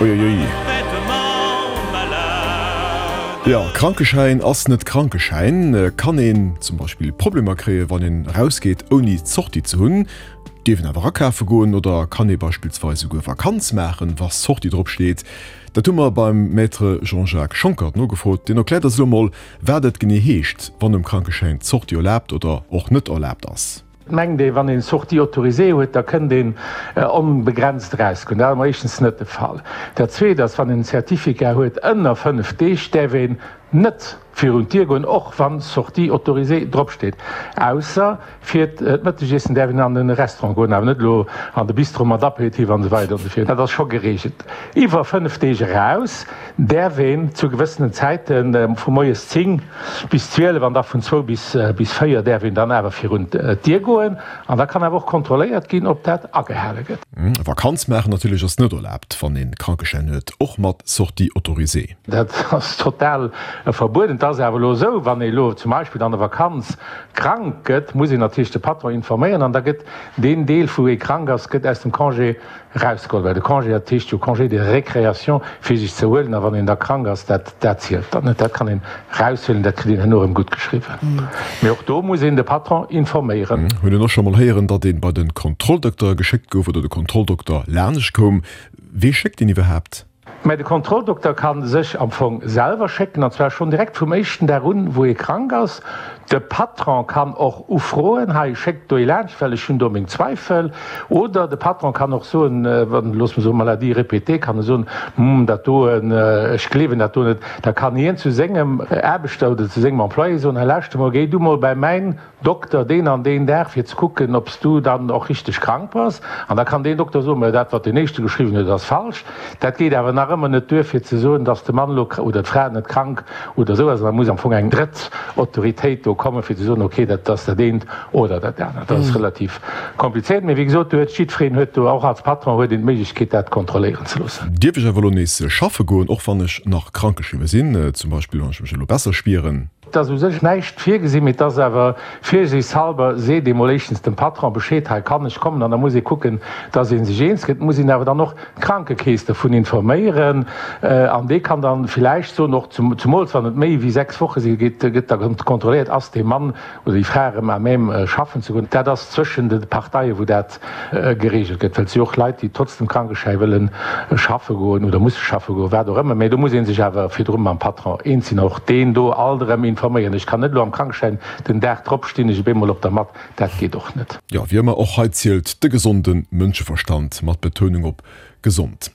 Uiuiui. Jo, Krankeschäin ass net Krankeschäin. Kann een zum Beispill Problemer kréien, wann een erausgeet ouni d'Sortie ze hunn? Dierf een awer akafe goen oder kann ee beispillsweis esouguer Vakanz maachen, wa Sortie drop steet? Dat hu mer beim Maître Jean-Jacques Schonckert nogefrot. Deen erkläert eis elo mol, wat et genee heescht, wann um Krankeschäin d'Sortie erlaabt oder och net erlaabt ass. Et mengt ee, wann een Sortie autorisée huet, da kënnt een onbegrenzt erausgoen. Dat ass emol éischtens net de Fall. Dat Zweet ass, wann een en Certificat huet ënner 5 Deeg, däerf een net virun d'Dier goen, och wann Sortie autorisée dropsteet, ausser fir d'Mëttegiessen däerf een an de Restaurant goen, awer net elo an de Bistro mat Apéritif an esou weider an esou virun. Dat ass scho gereegelt. Iwwer 5 Deeg eraus däerf een zu gewëssenen Zäiten, vu moies 10 bis 12 an da vun zwou bis 4 däerf een dann awer virun d'Dier goen an da kann awer och kontrolléiert ginn, ob dat agehale gëtt. Vakanz maachen natierlech ass net erlaabt, wann een Krankeschäin huet, och mat Sortie autorisée. Dat ass total verbueden. Et ass awer elo esou, wann ee elo zum Beispill an der Vakanz krank gëtt, muss een natierlech de Patron informéieren an da gëtt deen Deel, wou ee krank ass, gëtt aus dem Congé Erausgeholl, well de Congé, dat heescht jo Congé de récréation, fir sech ze erhuelen, a wann een da krank ass, dat, dat zielt dann net, dat kann een eraushuelen, dat kritt een herno erëm gutt geschriwwen. Mee och do muss een de Patron informéieren. Hunn en och scho mol héieren, datt een bei de Kontrolldokter geschéckt gouf oder de Kontrolldokter lanescht koum. Wee schéckt een iwwerhaapt? Mä de Kontrolldokter ka sech am Fong selwer schécken, an zwar schonn direkt vum éischten Dag un, wou ee krank ass. De Patron kann och ufroen, hei, schéckt do ee laanscht, well ech hunn do meng Zweifel. Oder de Patron kann och soen, wann, loosse mer soen, Maladie répétée, kann e soen, hm, dat do, ech gleewen dat do net. Da kann hien zu sengem Aarbechter oder zu sengem Employé soen, hei, lauschter mol, géi du mol bei mäin Dokter deen an deen Dag fir ze kucken, ob s du dann och richteg krank bass. An da kann deen Dokter soen, Mä dat, wat deen éischte geschriwwen huet, ass falsch. Dat geet awer nach ëmmer net duer, fir ze soen, dass de Mann elo oder d'Fra net krank oder esou ass. An da muss am Fong eng drëtt Autoritéit do kommen, fir ze soen, okay, dat ass dat eent oder dat anert. Dat ass relativ komplizéiert. Mee wéi gesot, do huet jiddwereen huet do, och als Patron huet een d'Méiglechkeet, dat kontrolléieren ze loossen. Dierf ech awer elo nees schaffe goen, och wann ech nach krankgeschriwwe sinn, zum Beispill wann ech mech elo besser spieren? Et ass u sech näischt virgesinn, mee et ass awer virsiichtshalber seet ee mol éischtens dem Patron Bescheed, hei kann ech kommen, an da muss ee kucken, dass ee sech eens gëtt. Et muss een awer dann och d'Krankekeess dervun informéieren an dee kann dann villäicht soen, och zumools wann et méi wéi 6 Woche si geet, gëtt da kontrolléiert, ass dee Mann oder déi Fra erëm à même schaffen ze goen. Dat ass zwëschen de Parteien, wou dat geregelt gëtt, well et si och Leit, déi trotz dem Krankeschäi wëlle schaffe goen oder musse schaffe goen, wat och ëmmer. Mä do muss ee sech awer virdru mam Patron eens sinn, och deen do alt erëm informéieren. Ech kann net elo am Krankeschäin, den Dag drop stinn ech op eemol op der Matt, dat geet och net. Jo, wéi ëmmer, och hei zielt de gesonde Mënscheverstand, mat Betounung op gesond.